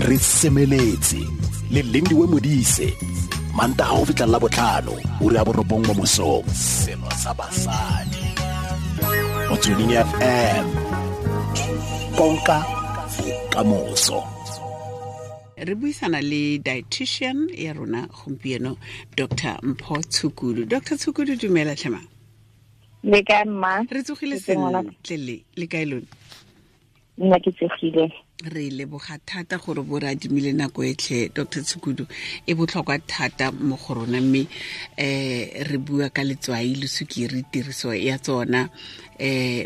Re semeletse le Lindiwe Modise, Mantaga go fitlha la botlhano, ura ya 9 mo mosong. Selo sa basadi. Motsweding FM. Konka bokamoso. Re buisana le dietitian ya rona gompieno, Dr Mpho Tshukudu. Dr Tshukudu, dumela tlhema. Le kae, mma? Re tsogile sentle, le kae lone? Nna ke tsogile. Re leboga thata gore bo re adimile nako e tlhe, Dr Tshukudu, e botlhokwa thata mo go rona, mme re bua ka letswai le sukiri, tiriso ya tsona,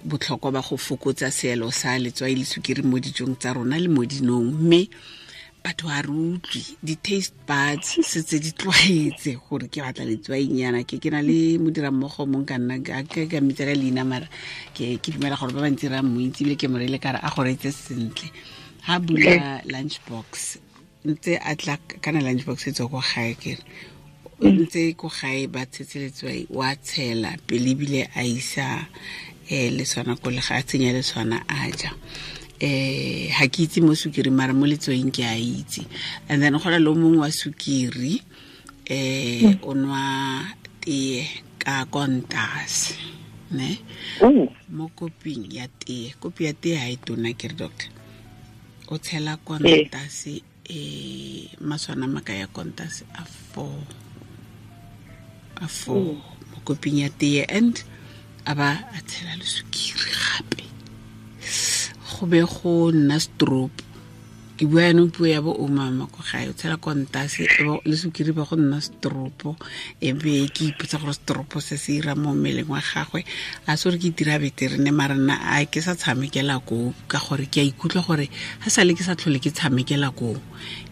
botlhokwa ba go fokotsa seelo sa letswai le sukiri mo dijong tsa rona le mo dinong. Mme batho ga re utlwe, di-taste buds setse di tlwaetse gore ke batla letswainyana. Ke na le modirammogo mong ka nna ke ka mmitsa ka leina, mara ke dumela gore ba bantsi ra mo itse, ebile ke mo reile kare a go reetse sentle. Ha bula lunch box, ntse a tla kana lunch box e tswa ko gae, kere ntse ko gae ba tshetse letswai, wa tshela pele ebile a isa leswana ko le ga a tsenya leswana a ja. Ha ke itse mo sukiri, mara mo letswaing ke a itse. And then go na le o mongwe wa sukiri, o nwa tee ka kontase, ne? Mo koping ya tee, kopi ya tee ha e tona ke re, doctor, o tshela kontase maswana maka ya kontase a 4, a 4 mo koping ya tee, and a ba a tshela le sukiri gape, go be go nna stroke. Ke bua yanong puo ya bo omama ko gae, o tshela kontase le sukiri ba go nna stropo, e be ke ipotsa gore stropo se se ira mo mmeleng wa gagwe. A se gore ke itira betere ne, mara nna a ke sa tshamekela koo, ka gore ke a ikutlwa gore ga sale ke sa tlhole ke tshamekela koo,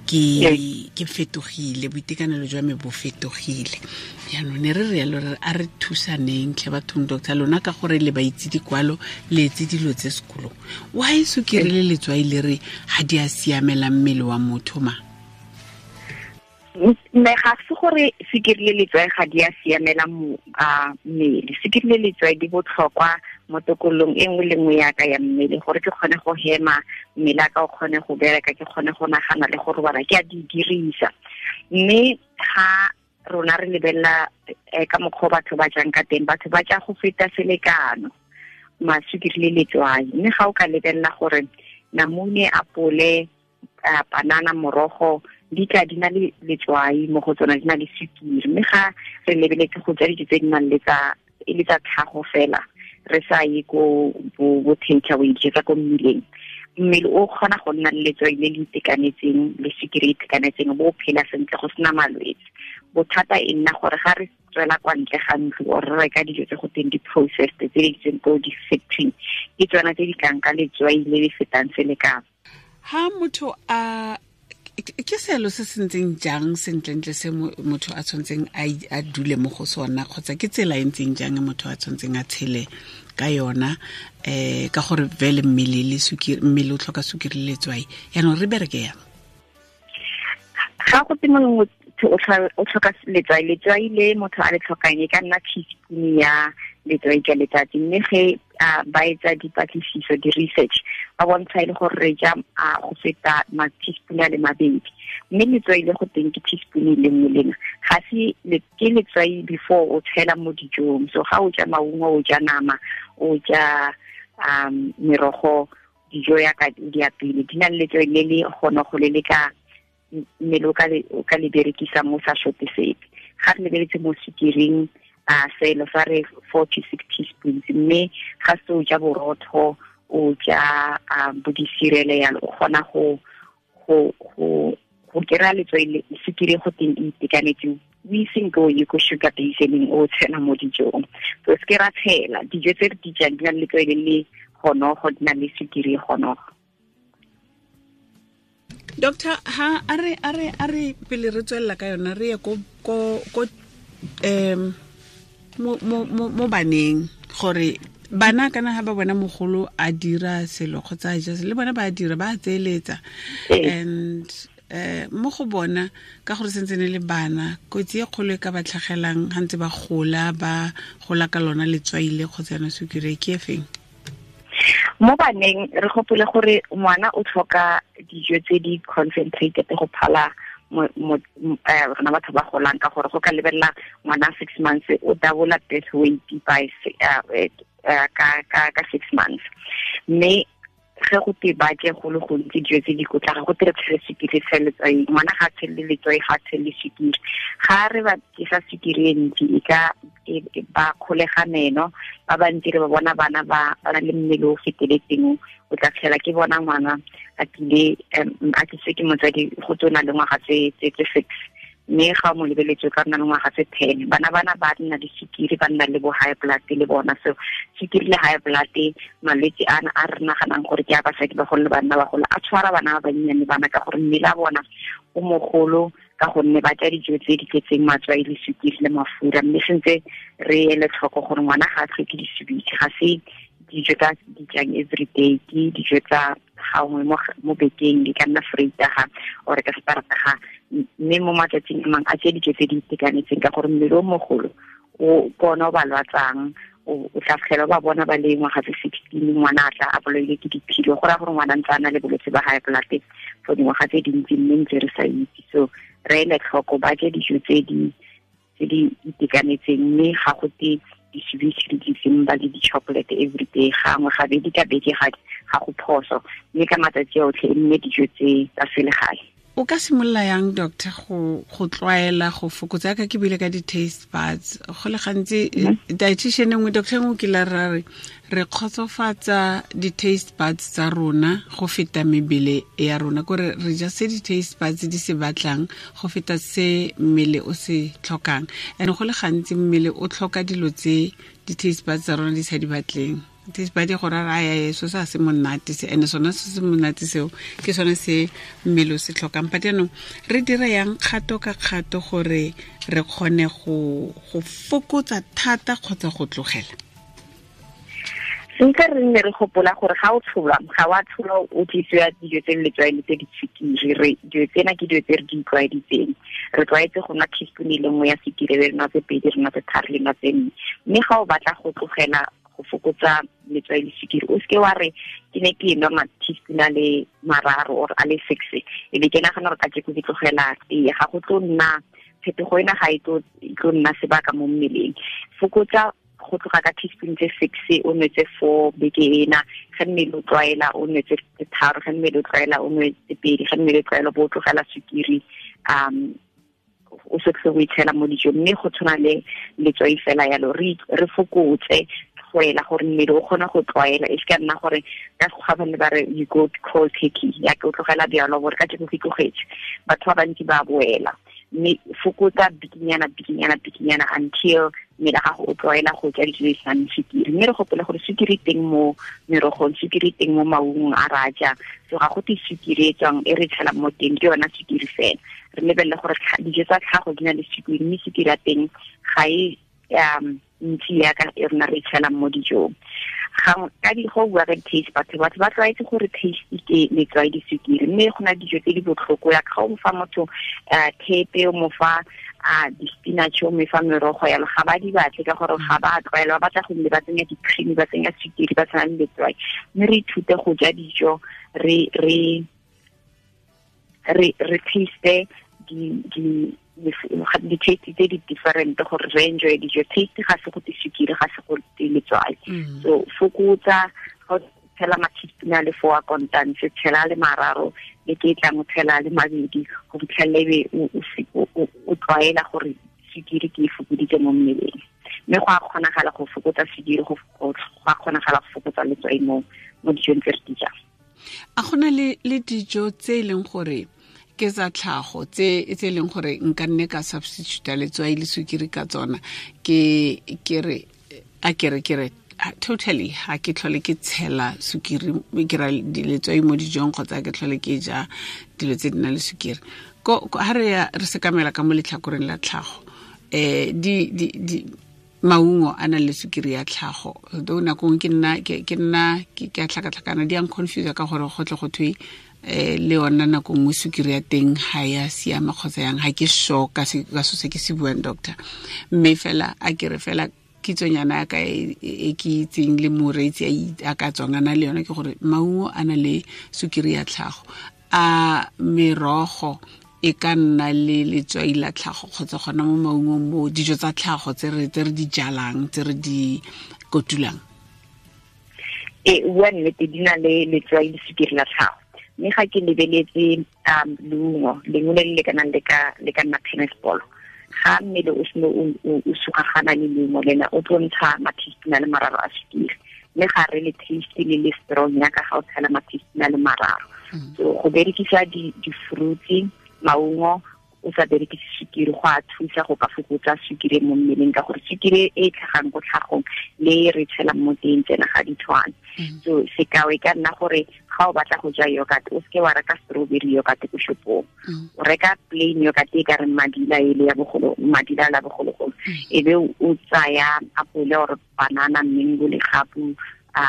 ke fetogile, boitekanelo jwa me bo fetogile. Jaanong ne re rialo, re a re thusaneng tlhe bathong, doctor, lona ka gore le ba itse dikwalo, le etse dilo tse sekolong. Why sukiri le letswai le re ga di a siamela mmele wa motho ma? Mme ga se gore sukiri le letswai ga di a siamela mmele. Sukiri le letswai di botlhokwa mo tokololong e nngwe le nngwe ya ka ya mmele, gore ke kgone go hema, mmele a ka o kgone go bereka, ke kgone go nagana le go robala, ke a di dirisa. Mme ga rona re lebelela ka mokgwa batho ba jang ka teng, batho ba ja go feta selekano masukiri le letswai. Mme ga o ka lebelela gore namune, apole, banana, morogo di tla di na le letswai mo go tsona, di na le sukiri. Mme ga re lebeletse go ja dijo tse di nang le tsa e le tsa tlhago fela, re sa ye ko bo take away, dijo tsa ko mmileng, mmele o kgona go nna le letswai le le itekanetseng le sukiri e itekanetseng, bo phela sentle go sena malwetse. Bothata e nna gore ga re tswela kwa ntle ga ntlo or re reka dijo tse go teng di-processed tse di tsweng ko di-factory, ke tsona tse di tlang ka letswai le le fetang selekano. Ha motho a ke selo se se ntseng jang sentlentle se motho a tshwantseng a dule mo go sona, kgotsa ke tsela e ntseng jang motho a tshwantseng a tshele ka yona, ka gore vele mmele le sukiri, mmele o tlhoka sukiri le letswai, yaanong re bereke yang? Ga go tse mongwe o tlhoka letswai, letswai le motho a le tlhokang e ka nna teaspoon ya letswai ka letsatsi. Mme ge ba etsa dipatlisiso, di-research, ba bontsha e le gore re ja go feta ma-teaspoon a le mabedi, mme letswai le go teng ke teaspoon e le nngwe lena, ga se ke letswai before o tshela mo dijong. So ga o ja maungo, o ja nama, o ja merogo, dijo ya ka di apile di na le letswai le le gona go le le ka mmele o ka le berekisa mo sa shote sepe. Ga re lebeletse mo sukiring, selo sa re 4 to 6 teaspoons, mme ga se o ja borotho, o ja bo di-cereal yalo, o kgona go kry-a letswai le sukiri go teng e itekanetse, o iseng ko ye ko sugar basening o tshela mo dijong. So se ke ra tshela dijo tse re di jang di na le letswai le le gonogo, di na le sukiri e gonogo. Doctor, ha a re pele re tswella ka yona, re ye ko mo baneng, gore bana kana ha ba bona mogolo a dira selo kgotsa a ja selo, le bona ba dira, ba tseeletsa. And mo go bona, ka gore sentse ne le bana, kotsi e kgolo e ka ba tlhagelang ha ntse ba gola, ba gola ka lona letswai le kgotsa yona sukiri, ke e feng? Mo baneng re gopole gore ngwana o tlhoka dijo tse di concentrated go phala rona batho ba golang, ka gore go ka lebelela ngwana 6 months o double birth weight by ka 6 months. Mme ge go te ba je go le gontsi dijo tse di kotla, ga go tere tshele sukiri tshele letswai, ngwana ga tshele letswai, ga tshele sukiri. Ga re ba tsa sukiri e ntsi e ka ba kgolega meno, ba bantsi re ba bona bana ba na le mmele o feteletseng, o tla tlhela ke bona ngwana a tlile a tliswe ke motsadi go tsona le ngwaga tse 6, mme ga mo lebeletse ka nna le ngwaga tse 10. Bana ba nna le sukiri, ba nna le bo high blood le bona. So sukiri le high blood, malwetse ana a re naganang gore ke a basadi bagolo le banna bagolo, a tshwara bana ba bannyane bana ka gore mmele a bona o mogolo, ka gonne ba ja dijo tse di tletseng matswai le sukiri le mafura. Mme sentse re ele tlhoko gore ngwana ga a tlhoke disubitse, ga se dijo tsa di jang everyday, ke dijo tsa gangwe mo bekeng, di ka nna Vrydag or ka Saterdag, mme mo matsatsing a mangwe a tse dijo tse di itekanetseng, ka gore mmele o mogolo o kona o ba lwatsang, o tla fitlhela ba bona ba le ngwaga tse 16, ngwana a tla a bolailwe ke diphilo, go raya gore ngwana ntse a na le bolwetse ba high blood for dingwaga tse dintsi, mme ntse re sa itse. So re ele tlhoko, ba je dijo tse di itekanetseng, mme ga go te disubitse le disimba le di-chocolate everyday, gangwe gabedi ka beke ga go phoso, mme ka matsatsi otlhe e nne dijo tse tsa selegae. O ka simolola yang, doctor, go tlwaela go fokotsa? Ka ke bile ka di-taste buds go le gantsi, dietitian nngwe, doctor nngwe ke la ra re re kgotsofatsa di-taste buds tsa rona go feta mebele ya rona, kore re ja se di-taste buds di se batlang go feta se mmele o se tlhokang. And go le gantsi mmele o tlhoka dilo tse di-taste buds tsa rona di sa di batleng. Taste bud go ra raya so sa se monate se, ene sona se se monate seo ke sone se mmele o se tlhokang. But jaanong re dira yang kgato ka kgato gore re kgone go fokotsa thata kgotsa go tlogela? Sentse re nne re gopola gore ga o tsholwa, ga wa tsholwa o tlisiwa dijo tse letswai le tse di sukiri. Re dijo tsena ke dijo tse re di tlwaeditseng, re tlwaetse go nwa teaspoon e le nngwe ya sukiri, re nwa tse pedi, re nwa tse tharo, le nwa tse nne. Mme ga o batla go tlogela go fokotsa letswai le sukiri, o seke wa re ke ne ke nwa ma-teaspoon a le mararo or a le 6, e be ke nagana gore kajeko ke tlogela tee. Ga go tlo nna phetogo ena, ga e tlo nna sebaka mo mmeleng. Fokotsa go tloga ka teaspoon tse 6, o nwe tse 4 beke ena, ge mmele o tlwaela o nwe tse 3, ge mmele o tlwaela o nwe tse 2, ge mmele o tlwaela bo o tlogela sukiri, o se tlhe go itshela mo dijong. Mme go tshwana le letswai fela yalo, re fokotse go ela gore mmele o kgone go tlwaela, e se ka nna gore ka sekgwa ba ne ba re you go cold turkey, ya ke o tlogela bjalo gore ka jeko ke tlogetse, batho ba bantsi ba boela. Mme fokotsa bikinyana bikinyana bikinyana until mmele gago o tlwaela go ja dijo tse di senang sukiri. Mme re gopole gore sukiri teng mo merogong, sukiri teng mo maungong a re a jang, so ga go te sukiri e tswang e re tshelang mo teng ke yona sukiri fela. Re lebelele gore dijo tsa tlhago di na le sukiri, mme sukiri ya teng ga e ntsi yaka e rona re tshelang mo dijong. Ka di go bua ka di-taste, batho ba tlwaetse gore taste ke letswai le sukiri, mme go na dijo tse di botlhoko. Ya ga o mo fa motho thepe, o mo fa di-spinach, o mo fa merogo yalo, ga ba di batle ka gore ga ba tlwaela, ba batla go nne ba tsenya di-cream, ba tsenya sukiri, ba tsenya le letswai. Mme re ithute go ja dijo, re taste di-taste tse di different gore re enjoy dijo. Taste ga se go te sukiri, ga se go te letswai. So fokotsa, ga o tshela ma-teaspoon a le 4 a kontantse, tshela le mararo, le ke tlang o tshela le mabedi, go fitlhelela ebe o tlwaela gore sukiri ke e fokoditse mo mmeleng. Mme go a kgonagala go fokotsa sukiri, go a kgonagala go fokotsa letswai mo dijong tse re di jang. A gona le dijo tse e leng gore ke tsa tlhago tse e leng gore nka nne ka substitute letswai le sukiri ka tsona, ke re a ke re totally ha ke tlhole ke tshela sukiri, ke ra letswai mo dijong, kgotsa ke tlhole ke ja dilo tse di nang le sukiri. Ko ha re ya re sekamela ka mo letlhakoreng la tlhago, di maungo a nang le sukiri ya tlhago, though nako nngwe ke nna ke a tlhakatlhakana, di a nconfuse ka gore go tle go thwe le yona nako nngwe sukiri ya teng ga ya siama kgotsa yang, ga ke sure ka so se ke se buang, doctor. Mme fela a ke re fela Kitsonyana ya ka e ke itseng le moreetsi a ka tswang a na le yone ke gore maungo a na le sukiri ya tlhago, a merogo e ka nna le letswai la tlhago kgotsa gona mo maungong mo dijo tsa tlhago tse re di jalang, tse re di kotulang? E bua nnete, di na le letswai le sukiri la tlhago, mme ga ke lebeletse leungo lengwe le le lekanang le ka nna tennis ball, ga mmele o seno o sugagana le leungo lena, o tlo ntsha mathistina le mararo a sukiri, mme ga re le taste le le strong yaka ga o tshela mathistina le mararo. So go berekisa di-fruits, maungo, o sa berekise sukiri go a thusa go ka fokotsa sukiri mo mmeleng, ka gore sukiri e tlhagang ko tlhagong le re tshelang mo teng tsena ga di tshwane. So sekao e ka nna gore ga o batla go ja yogurt, o seke wa reka strawberry yogurt ko shopong, o reka plain yogurt e ka reng madila ele ya bogolo, madila la bogologolo, e be o tsaya apole or banana, mango, legapu,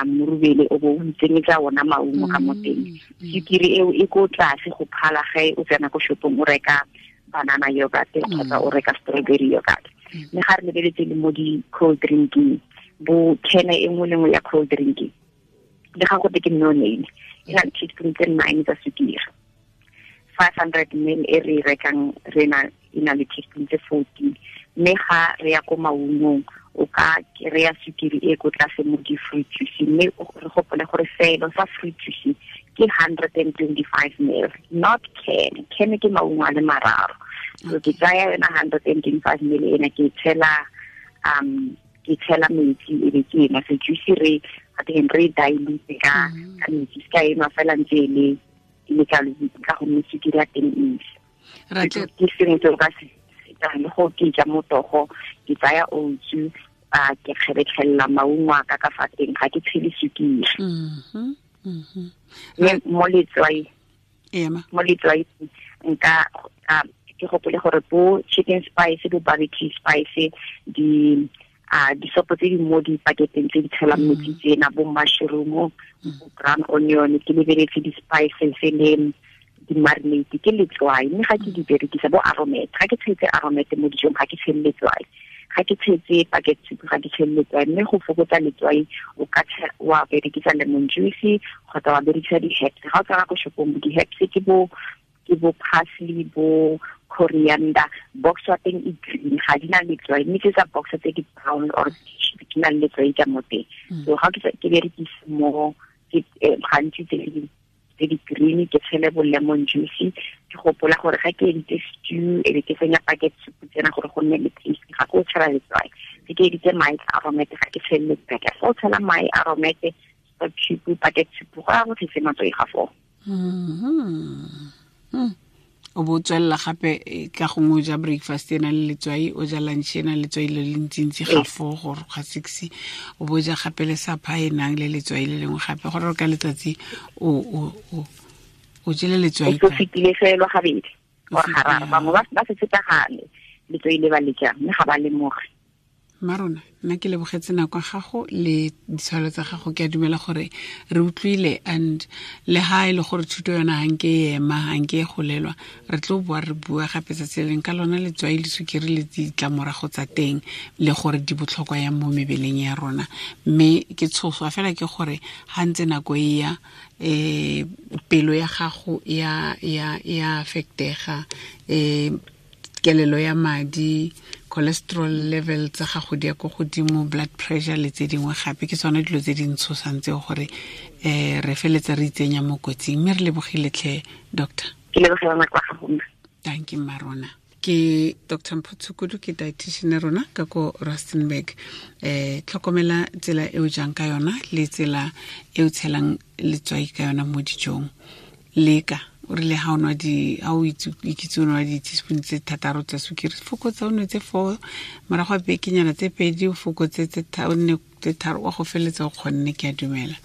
morubele, o bo o itsenyetsa ona maungo ka mo teng. Sukiri eo e ko tlase go phala ge o tsena ko shopong o reka banana yogurt kgotsa o reka strawberry yogurt. Mme ga re lebeletse le mo di-cold drinking, bo can e nngwe le nngwe ya cold drinking, le ga go te ke no name, e na le teaspoon tse 9 tsa sukiri. 500 ml e re rekang rena e na le teaspoon tse 14. Mme ga re ya ko maungong, o ka kry-a sukiri e ko tlase mo di-fruit juice, mme re gopole gore selo sa fruit juice ke 125 ml, not can. Can ke maungo a le mararo. So ke tsaya yona 125 ml ena, ke tshela metsi, e be ke ena. So juice re teng re dilute ka metsi, se ka enwa fela ntse e le ka ka gonne sukiri ya teng e ntsi. Ke sengwe se o ka se le go ke ja motogo, ke tsaya oats, ke kgebetlhelela maungo a ka ka fa teng, ga ke tshele sukiri. Mme mo letswai nka ke gopole gore bo chicken spice, bo barbecue spice, di disopo tse di mo dipaketeng tse di tshelang metsi tsena, bo mushroom, bo brown onion, ke lebeletse di-spices le di-marinate, ke letswai. Mme ga ke di berekisa bo aromat, ga ke tshetse aromat mo dijong ga ke tshele letswai, ga ke tshetse packet soup ga ke tshele letswai. Mme go fokotsa letswai o ka wa berekisa lemon juice kgotsa wa berekisa di-herbs. Ga o tsena ko shopong, di-herbs ke bo parsley, bo coriander, box wa teng e green, ga di na letswai, mme tse tsa box tse di brown or di na le letswai ka mo teng. So ga ke berekise mo gantsi tse di green, ke tshele bo lemon juice, ke gopola gore ga ke editse stew e be ke tsenya packet soup tsena gore go nne le taste, ga ke o tshela letswai. Ge ke editse mae aromat, ga ke tshele letswai. Fa o tshela mae aromat, stock cube, packet soup, go ya go tletse matswai ga foo. O bo tswelela gape ka gongwe o ja breakfast e nang le letswai, o ja lunch e nang le letswai le le ntsintsi ga 4 gore ga 6, o bo ja gape le supper e nang le letswai le lengwe gape, gore ka letsatsi o jele letswai. O fetile fela gabedi or gararo, bangwe ba setse ka gale letswai le ba le jang, mme ga ba lemoge. Marona, nna ke lebogetse nako ya gago le ditshwalo tsa gago. Ke a dumela gore re utlwile, and le ha e le gore thuto yona ga nke e ema, ga nke e golelwa, re tlo boa re bua gape tsatsi le leng ka lona letswai le sukiri le ditlamorago tsa teng, le gore di botlhokwa yang mo mebeleng ya rona. Mme ke tshoswa fela ke gore ga ntse nako e ya, pelo ya gago ya affectega, kelelo ya madi, cholesterol level tsa gago di ya ko godimo, blood pressure le tse dingwe gape. Ke tsone dilo tse di ntshosang tseo gore re feletse re itsenya mo kotsing. Mme re lebogile tlhe, doctor. Ke lebogela nako ya gago. Thank you, Marona. Ke Dr. Mpho Tshukudu, ke dietitian rona ka ko Rustenburg. Tlhokomela tsela e o jang ka yona le tsela e o tshelang letswai ka yona mo dijong. Leka o rile ha o nwa di, ha o ikitse o nwa di-teaspoon tse thataro tsa sukiri, fokotsa o nwe tse 4, morago ga bekenyana tse 2 o fokotse tse o nne tse 3, wa go feletsa o kgonne. Ke a dumela.